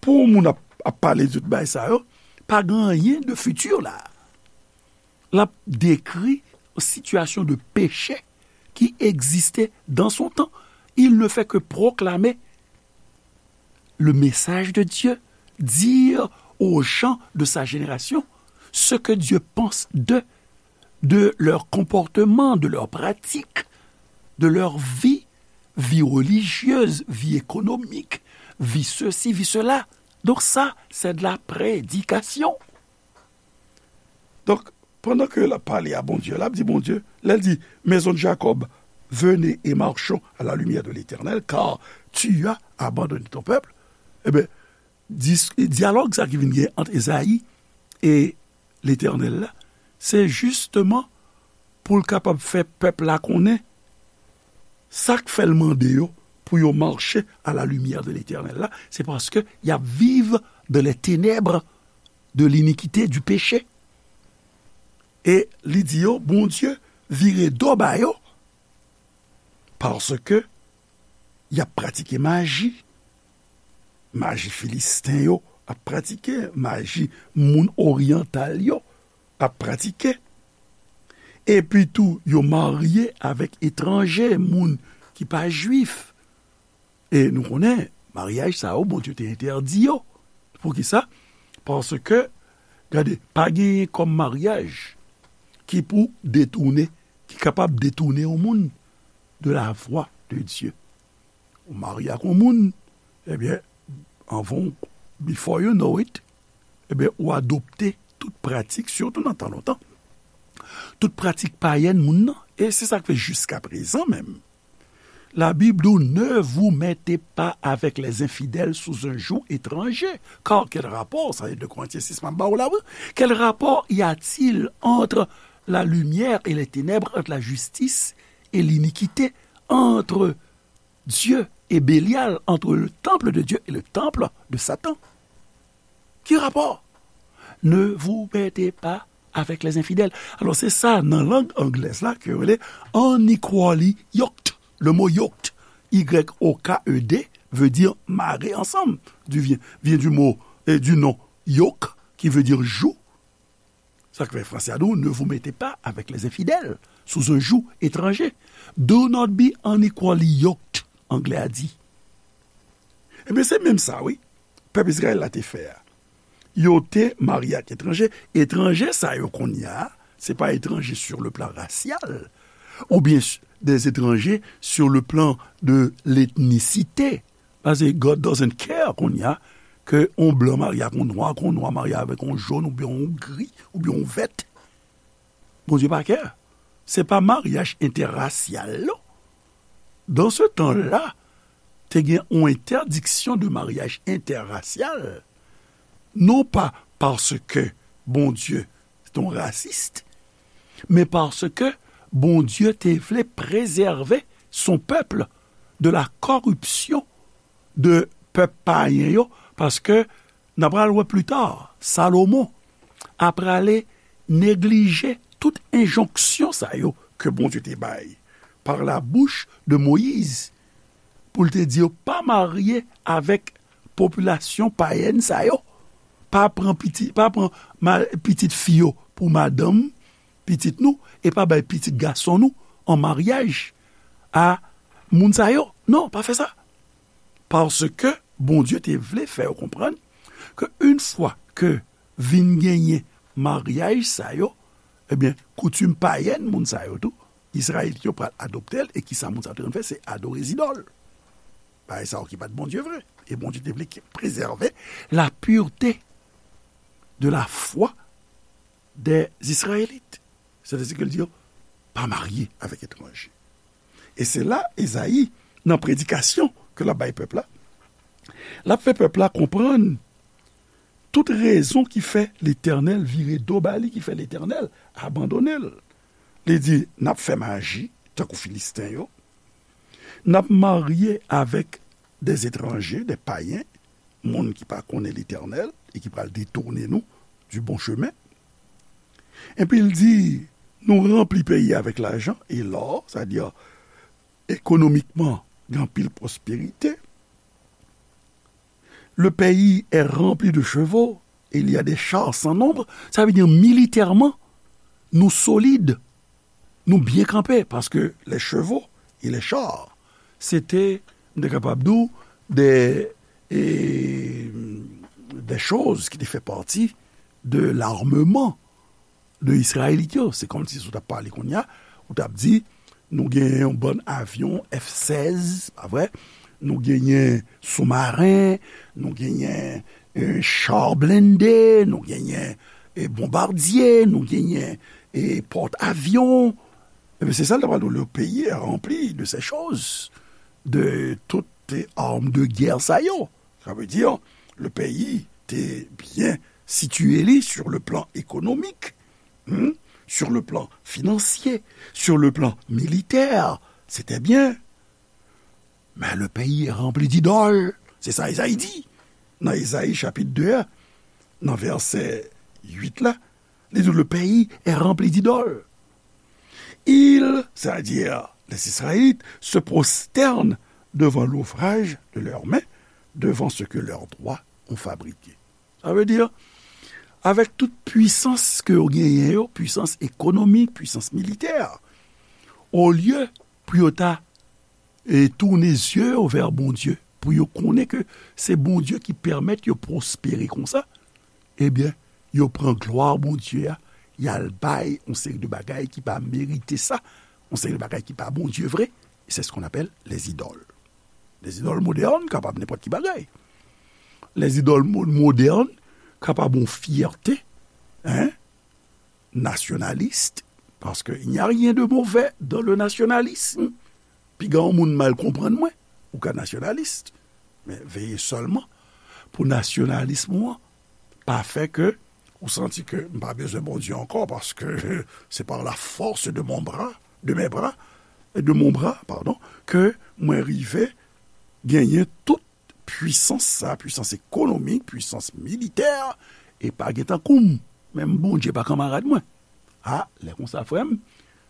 pou yon moun ap, ap pale de tout bagay sa yo, pa gen anyen de fiti la. L ap dekri yon sitiyasyon de peche qui existait dans son temps. Il ne fait que proclamer le message de Dieu, dire aux gens de sa génération ce que Dieu pense d'eux, de leur comportement, de leurs pratiques, de leur vie, vie religieuse, vie économique, vie ceci, vie cela. Donc ça, c'est de la prédication. Donk, pandan ke l ap pale a Bondye, l ap di Bondye, lè l di, maison de Jacob, venez et marchons à la lumière de l'Éternel, car tu as abandonné ton peuple, ebyen, dis-, dyalòg sa ki vin gen ant Ezayi e Letènèl la, se jisteman pou l kapab fè pèp la konnen sa k fè l mande yo pou yo mache à la lumière de l'Éternel la, se paske y ap viv dans les ténèbres de l'iniquité, du péché. E li di yo, Bondye vire do ba yo, paske y ap pratike maji. Maji Filisten yo ap pratike, maji moun oryantal yo ap pratike. Epi tou, yo marye avèk etranje, moun ki pa jwif. E nou konnen, maryaj sa yo, Bondye te entèdi yo. Poukisa? Paske, gade, pa genyen kòm maryaj ki pou detounen, ki kapab detounen yon moun de la voie de Dieu. Ou marye ak yon moun, ebyen, anvan, before you know it, ebyen, ou adopte tout pratik, sitou nan tan lontan, tout pratik payèn moun nan. E se sa k fè jiska prezan menm, la Bible dit, ne vous mettez pas avec les infidèles sous un joug étranger. Car quel rapport, ça est de Corinthiens six, m ap ba w la, wi. Quel rapport y a-t-il entre la lumière et les ténèbres, entre la justice et l'iniquité, entre Dieu et Bélial, entre le temple de Dieu et le temple de Satan? Ki rapò? Ne vous mettez pas avec les infidèles. Alò, se sa, nan lang anglèz la, ke yo rele unequally yoked. Le mot yoked, Y O K E D, veut dire marré ensemble, du, vient, vient du mot, euh, du nom yoke, qui veut dire joug. Sa k fè franse a di w, ne vous mettez pas avec les infidèles sous un joug étranger. Do not be unequally yoked, anglè a di. Ebyen, se menm sa, wi. Pèp Izrayèl la te fè a. Yo te marye ak etranje. Etranje sa yo kounye a, se pa etranje sur le plan racial, oubyen s-, des étrangers sur le plan de l'ethnicité. Paske God doesn't care kounye a ke on blan marye ak on nwa, ke on nwa marye avèk on jòn, oubyen on gri, oubyen on vèt. Bondye pa care. Se pa maryaj entèrasyal, non. Dan se tan la, te gen yon entèdiksyon de maryaj entèrasyal, non pa paske Bondye se yon rasis, men paske Bondye te vle prezève son pèp de la kòripsyon de pèp payen yo, paske n a pral wè pli ta, Salomon a prale neglije tout enjonksyon sa yo ke Bondye te bay pa la bouch de Moyiz, pou l te di yo pa marye avèk popilasyon payèn sa yo, pa pran piti, pa pran ma-, pitit fi yo pou madanm pitit nou, e pa bay pitit gason nou an maryaj a moun sa yo. Non, pa fè sa. Paske Bondye te vle fè yo konprann ke yon fwa ke vin genyen maryaj sa yo, ebyen, koutim payèn moun sa yo tou, Izrayelit yo pral adopte l, e kisa moun sa yo te konn fè, se adore zidòl. Bagay sa yo ki pa t Bondye vre. E Bondye te vle ki prezève la pureté de la foi des Israélites. Sètadi ke l di yo, pa marye avèk etranje. E se la, Ezayi, nan predikasyon ke l ap bay pèp la, l ap fè pèp la konprann tout rezon ki fè Letènèl vire do ba li, ki fè Letènèl abandone l. Li di, n ap fè maji, tankou Filisten yo. N ap marye avèk des étrangers, des païens, moun ki pa konnen Letènèl e ki pral detounen nou du bon chemin. Epi l di, nou ranpli peyi avèk lajan e lò, sètadi ekonomikman, gen anpil pwosperite. Le pays est rempli de chevaux, et il y a des chars sans nombre. Sa vle di, militèman, nou solid, nou byen kanpe, paske les chevaux et les chars, se te, m te kapab di w, de, e, de choz ki te fè pati de l'armement de Izrayelit yo. Se kòmsi si w t ap pale kounye a, ou t ap di, nou genyen yon bann avyon F sèz, pa vre? Nou genyen soumaren, nou genyen, e, cha blende, nou genyen, e, bonbadye, nou genyen, e, pòt avyon. Ebyen, se sa l t ap pale, le pays est rempli de ces choses, de tout, e, arm de guerre sa yo. Sa vle di, le peyi te byen sitiye li sur le plan économique, hmm, sur le plan financier, sur le plan militaire. C'était bien. Mais le pays est rempli d'idoles. Se sa Ezayi di. Nan Ezayi chapit de a, nan vèsè uit la, li di, le pays est rempli d'idoles. Ils, c'est-à-dire les Israélites, se prosternent devant l'ouvrage de leurs mains, devant ce que leurs doigts ont fabriqué. Sa vle di, avèk tout pwisans ke yo genyen yo, pwisans ekonomik, pwisans militè, olye pou yo ta, e, tounen zye yo vè Bondye, pou yo konnen ke se Bondye ki pèmèt yo pwospere konsa, ebyen, yo pran glwa Bondye a, y al bay yon seri de bagay ki pa merite sa, yon seri de bagay ki pa Bondye vre, e c'est ce qu'on appelle les idoles. Les idoles modernes kapab nenpòt ki bagay. Les idoles mo-, modernes kapab yon fyète, hein, nationaliste, parce que il n'y a rien de mauvais dans le nationalisme. Piga yon moun mal konprann mwen, ou ka nasyonalis, men veye sèlman pou nasyonalism ou an pa fè ke ou santi ke m pa bezwen Bondye ankò, paske c'est par la force de mon bras, de mes bras, de mon bras, pardon, ke mwen rive genyen tout pwisans sa, pwisans ekonomik, pwisans militè, e pa gen tankou m. Menm Bondye pa kanmarad mwen. A, lè konsa, frè m,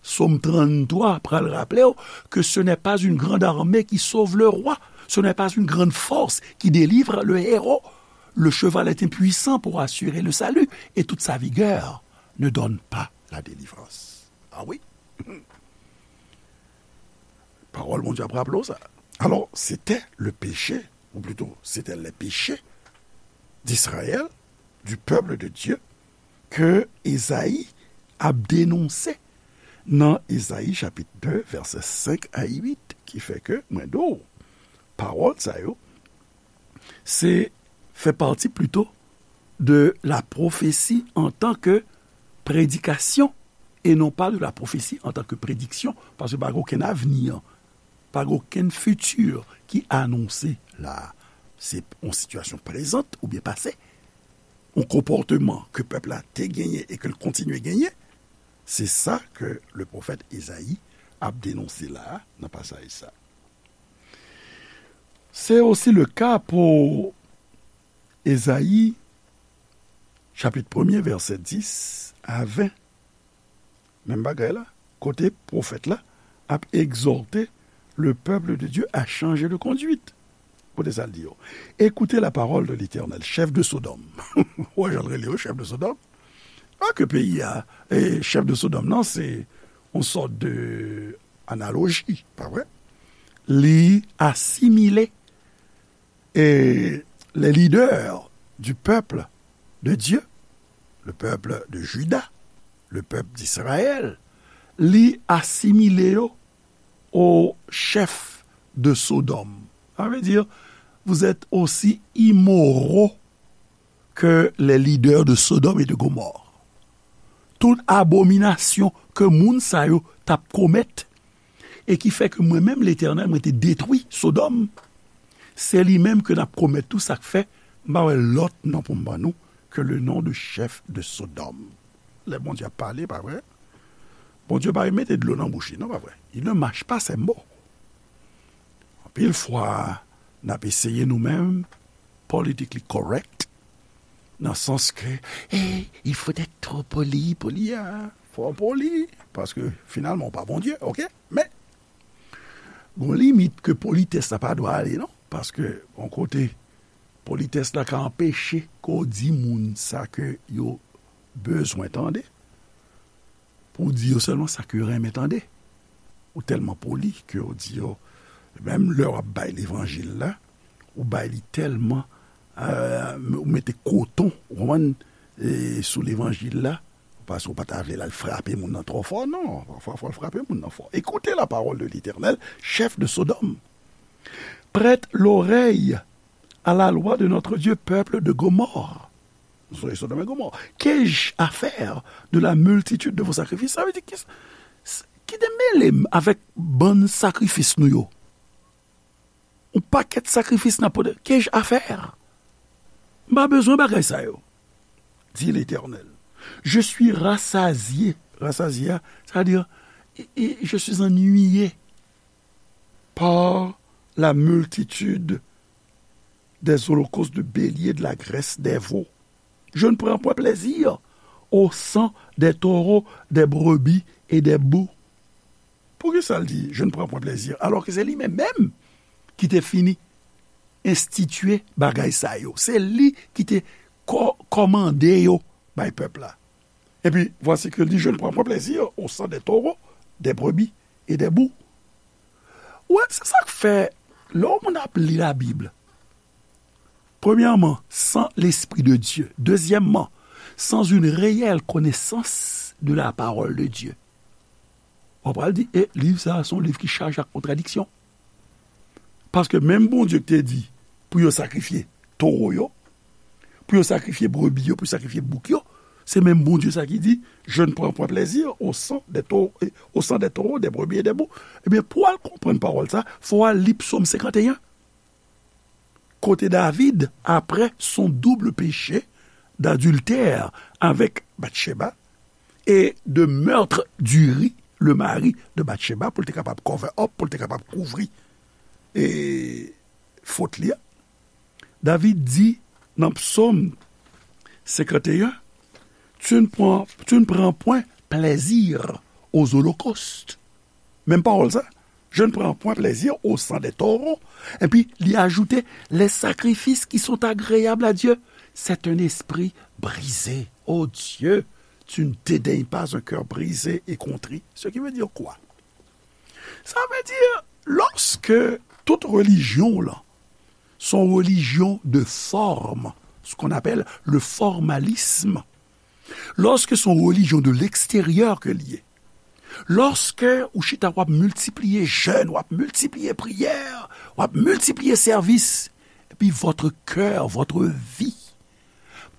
Sòm tranntwa pral raple w que ce n'est pas une grande armée qui sauve le roi, ce n'est pas une grande force qui délivre le héros. Le cheval est impuissant pour assurer le salut, et toute sa vigueur ne donne pas la délivrance. Ah oui. Pawòl Bondye ap raple w sa. Alors, c'était le péché, ou plutôt, c'était les péchés d'Israël, du peuple de Dieu, ke Ezayi ap denonse nan Ezayi chapit de, vèsè senk a uit, ki fè ke, mwen di w, pawòl sa yo, se fè pati plito de la prophétie en tant que prédication et non pas de la prophétie en tant que prédiction, paske pa gen okenn avni, pa gen okenn fiti ki anonse la. Se yon sitiyasyon prezant oubyen pase, yon konpòtman ke pèp la te genyen e ke l kontinye genyen. Se sa ke le pwofèt Ezayi ap denonse la nan pasaj sa. Se osi le ka pou Ezayi, chapit premye, vèsè dis a ven. Menm bagay la, kote pwofèt la ap egzòte le peuple de Dieu à changer de conduite. Koute sa l di yo. Écoutez la parole de l'Éternel, chef de Sodome. Ou wè jan l rele yo, chef de Sodome? Pa ke peyi a, e chef de Sodome nan, se yon sòt de analoji, pa vre? Li asimile e les leaders du peuple de Dieu, le peuple de Juda, le peuple d'Israël, li asimile yo aux chefs de Sodome. Ça veut dire, vous êtes aussi immoraux que les leaders de Sodome et de Gomorrhe. Tout abominasyon ke moun sa yo t ap komèt, e ki fè ke mwen menm, Letènèl, mwen te detwi Sodòm, se li menm ke n ap komèt tou, sa k fè m pa wè lòt non pou m ban nou ke le nom de chef de Sodome. Lè Bondye ap pale, pa vre? Bondye pa mete dlo nan bouch li, non, pa vre? Il ne mâche pas ses mots. Anpil fwa, n ap eseye nou menm, politically correct, nan sans ke, eh, il faut être trop poli, poli, hein. Fò w poli, paske finalman, w pa Bondye, oke? Men, gon limit ke politès la pa dwe ale, non? Paske, yon kote, politès la ka anpeche ke w di moun sa ke yo bezwen tande, pou w di yo sèlman sa ke yo renmen tande. Ou tèlman poli ke w di yo, menm lè w ap bay levanjil la, ou bay li tèlman, euh, ou mete koton, ou konprann, e, sou levanjil la, paske w pa ta vle l al frape moun nan twò fò, non. Pafwa, fò l frape moun nan fò. Écoutez la parole de l'Éternel, chef de Sodome. Prête l'oreille à la loi de notre Dieu, peuple de Gomorrhe. Vous voyez Sodome et Gomorrhe. Qu'ai-je à faire de la multitude de vos sacrifices? Sa vle di, ki, ki te mele m avèk bann sakrifis nou yo? Yon pakèt sakrifis n ap pote. Qu'ai-je à faire? M pa bezwen bagay sa yo, dit l'Éternel. Je suis rassasié. Rassasié, c'est-à-dire, e, e, je suis ennuyé par la multitude des holocaustes de béliers, de la graisse des veaux. Je ne prends point plaisir au sang des taureaux, des brebis et des boucs. Poukisa l di, je ne prends point plaisir, alò ke se li menm menm ki te fini enstitye bagay sa yo? Se li ki te kò-, kòmande yo bay pèp la. Et puis, voici que dit, je ne prends point plaisir au sang des taureaux, des brebis et des boucs. Wè, se sa k fè, lè yon moun ap li Labib, premyèman, sans l'Esprit de Dieu. Dezyèmman, sans une réelle connaissance de la parole de Dieu. W ap pral di, e, liv sa a, se yon liv ki chaje ak kontradiksyon. Paske menm Bondye ki te di pou yo sakrifye towo yo, pou yo sakrifye brebi yo, pou yo sakrifye bouk yo, se menm Bondye sa ki di, je ne prends point plaisir au sang des taureaux, au sang des taureaux, des brebis et des boucs. Ebyen, pou w al konprann pawòl sa, fò w al li Psòm senkanteyen. Kote David, après son double péché d'adultère avec Bathsheba et de meurtre d'Uri, le mari de Bathsheba, pou l te kapab cover up, pou l te kapab kouvri, e, fot li a, David di nan Psòm senkanteyen, tu ne prends, tu ne prends point plaisir aux holocaustes. Menm pawòl sa. Je ne prends point plaisir au sang des taureaux. Epi li ajoute, les sacrifices qui sont agréables à Dieu, c'est un esprit brisé. Oh Dieu, tu ne dédaignes pas un cœur brisé et contrit. Ce qui veut dire quoi? Sa vle di, lòske tout relijyon la, se yon relijyon de fòm, ce qu'on appelle le formalisme, lòske se yon relijyon de l'extérieur ke l ye, lòske ou chita w ap miltipliye jèn, w ap miltipliye priyè, w ap miltipliye sèvis, epi votre cœur, votre vie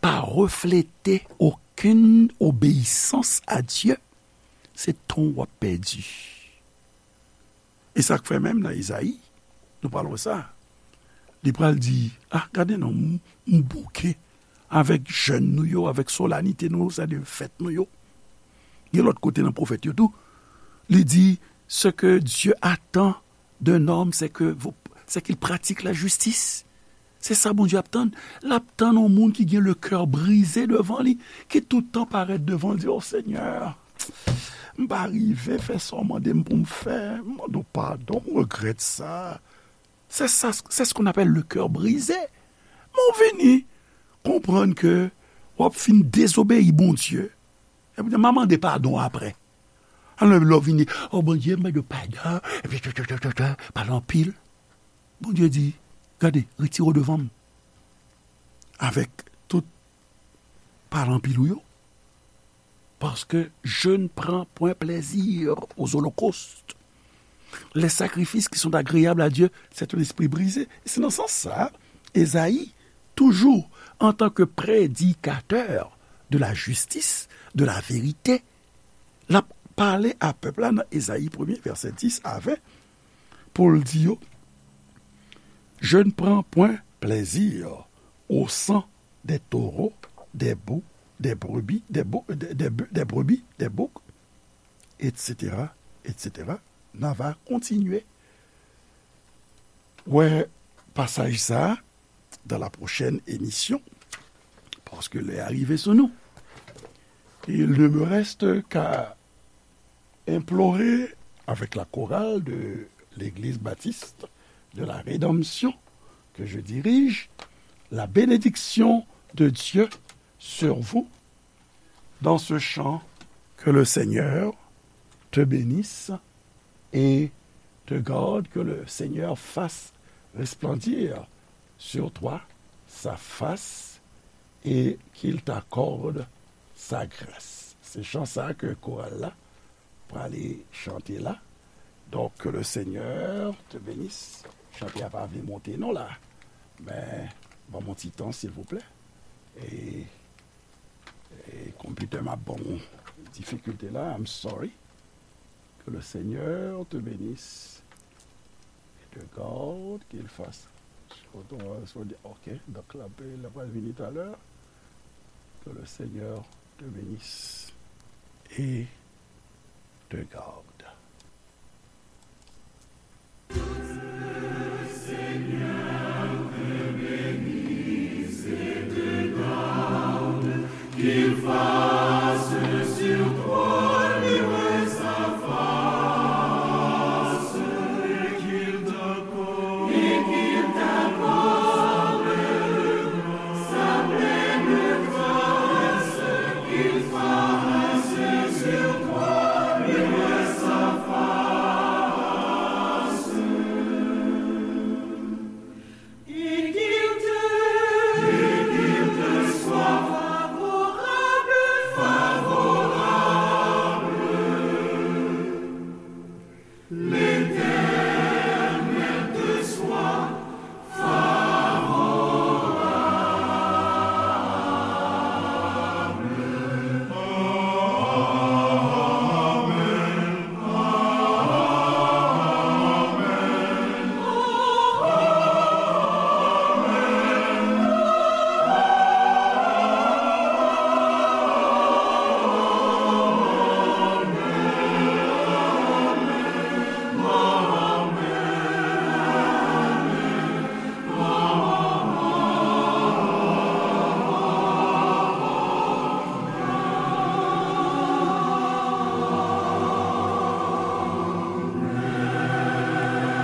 pa reflete okenn obeyisans a Dye, se tan w ap pèdi. E sa k fè menm nan Ezayi, nou pral wè sa. Li pral di, ah, gade non, m, m bouke avèk jèn nou yo, avèk solanite nou yo, sa de fèt nou yo. Gen lòt kote nan pwofèt yo tou, li di, ce que Dieu attend d'un homme, c'est que vous, c'est qu'il pratique la justice. Se sa Bondye ap tann. L ap tann yon moun ki gen le cœur brisé devan li, ki tout tan parèt devan l, di, o Senyè, m pa rive fè sa w mande m pou m fè, m mande w padon, m regrèt sa. C'est ça, c'est ce qu'on appelle le cœur brisé. Men w vini konprann ke w ap fin dezobeyi Bondye. Epi w di, m a mande padon apre. Alò, lè w vini, o Bondye, m mande w padon, epi tè, tè, tè, tè, tè, pale anpil. Bondye di, gade, retire w devan m. Avèk tout pale anpil ou yo. Parce que je ne prends point plaisir aux holocaustes. Les sacrifices qui sont agréables à Dieu, c'est un esprit brisé. E se nan sans sa, Ezayi, toujours en tant que prédicateur de la justice, de la vérité, l ap pale a pèp la nan Ezayi premye, vèsè dis a ven, pou l di yo, je ne prends point plaisir au sang des taureaux, des bœufs, des brebis, des bou-, des, des bœufs, des brebis, des boucs, et cetera, et cetera. N a va kontinye wè pasaj sa a dans la prochaine émission, parce que lè a rive sou nou. Il ne me reste qu'à implorer avec la chorale de l'Église baptiste de la Rédemption que je dirige, la bénédiction de Dieu sur vous dans ce chant. Que le Seigneur te bénisse et te garde, que le Seigneur fasse resplendir sur toi sa face et qu'il t'accorde sa grâce. Se chan sa ke koral la prale chante la. Donk, que le Seigneur te bénisse. Chante a pa vle monte non la. Men, ban m yon ti tan, silvouplè. E, e konpitè m ap ban m difikilte la, I'm sorry. Que le Seigneur te bénisse et te garde, qu'il fasse. Ok, donk la, la pral vini talè. Que le Seigneur te bénisse et te garde.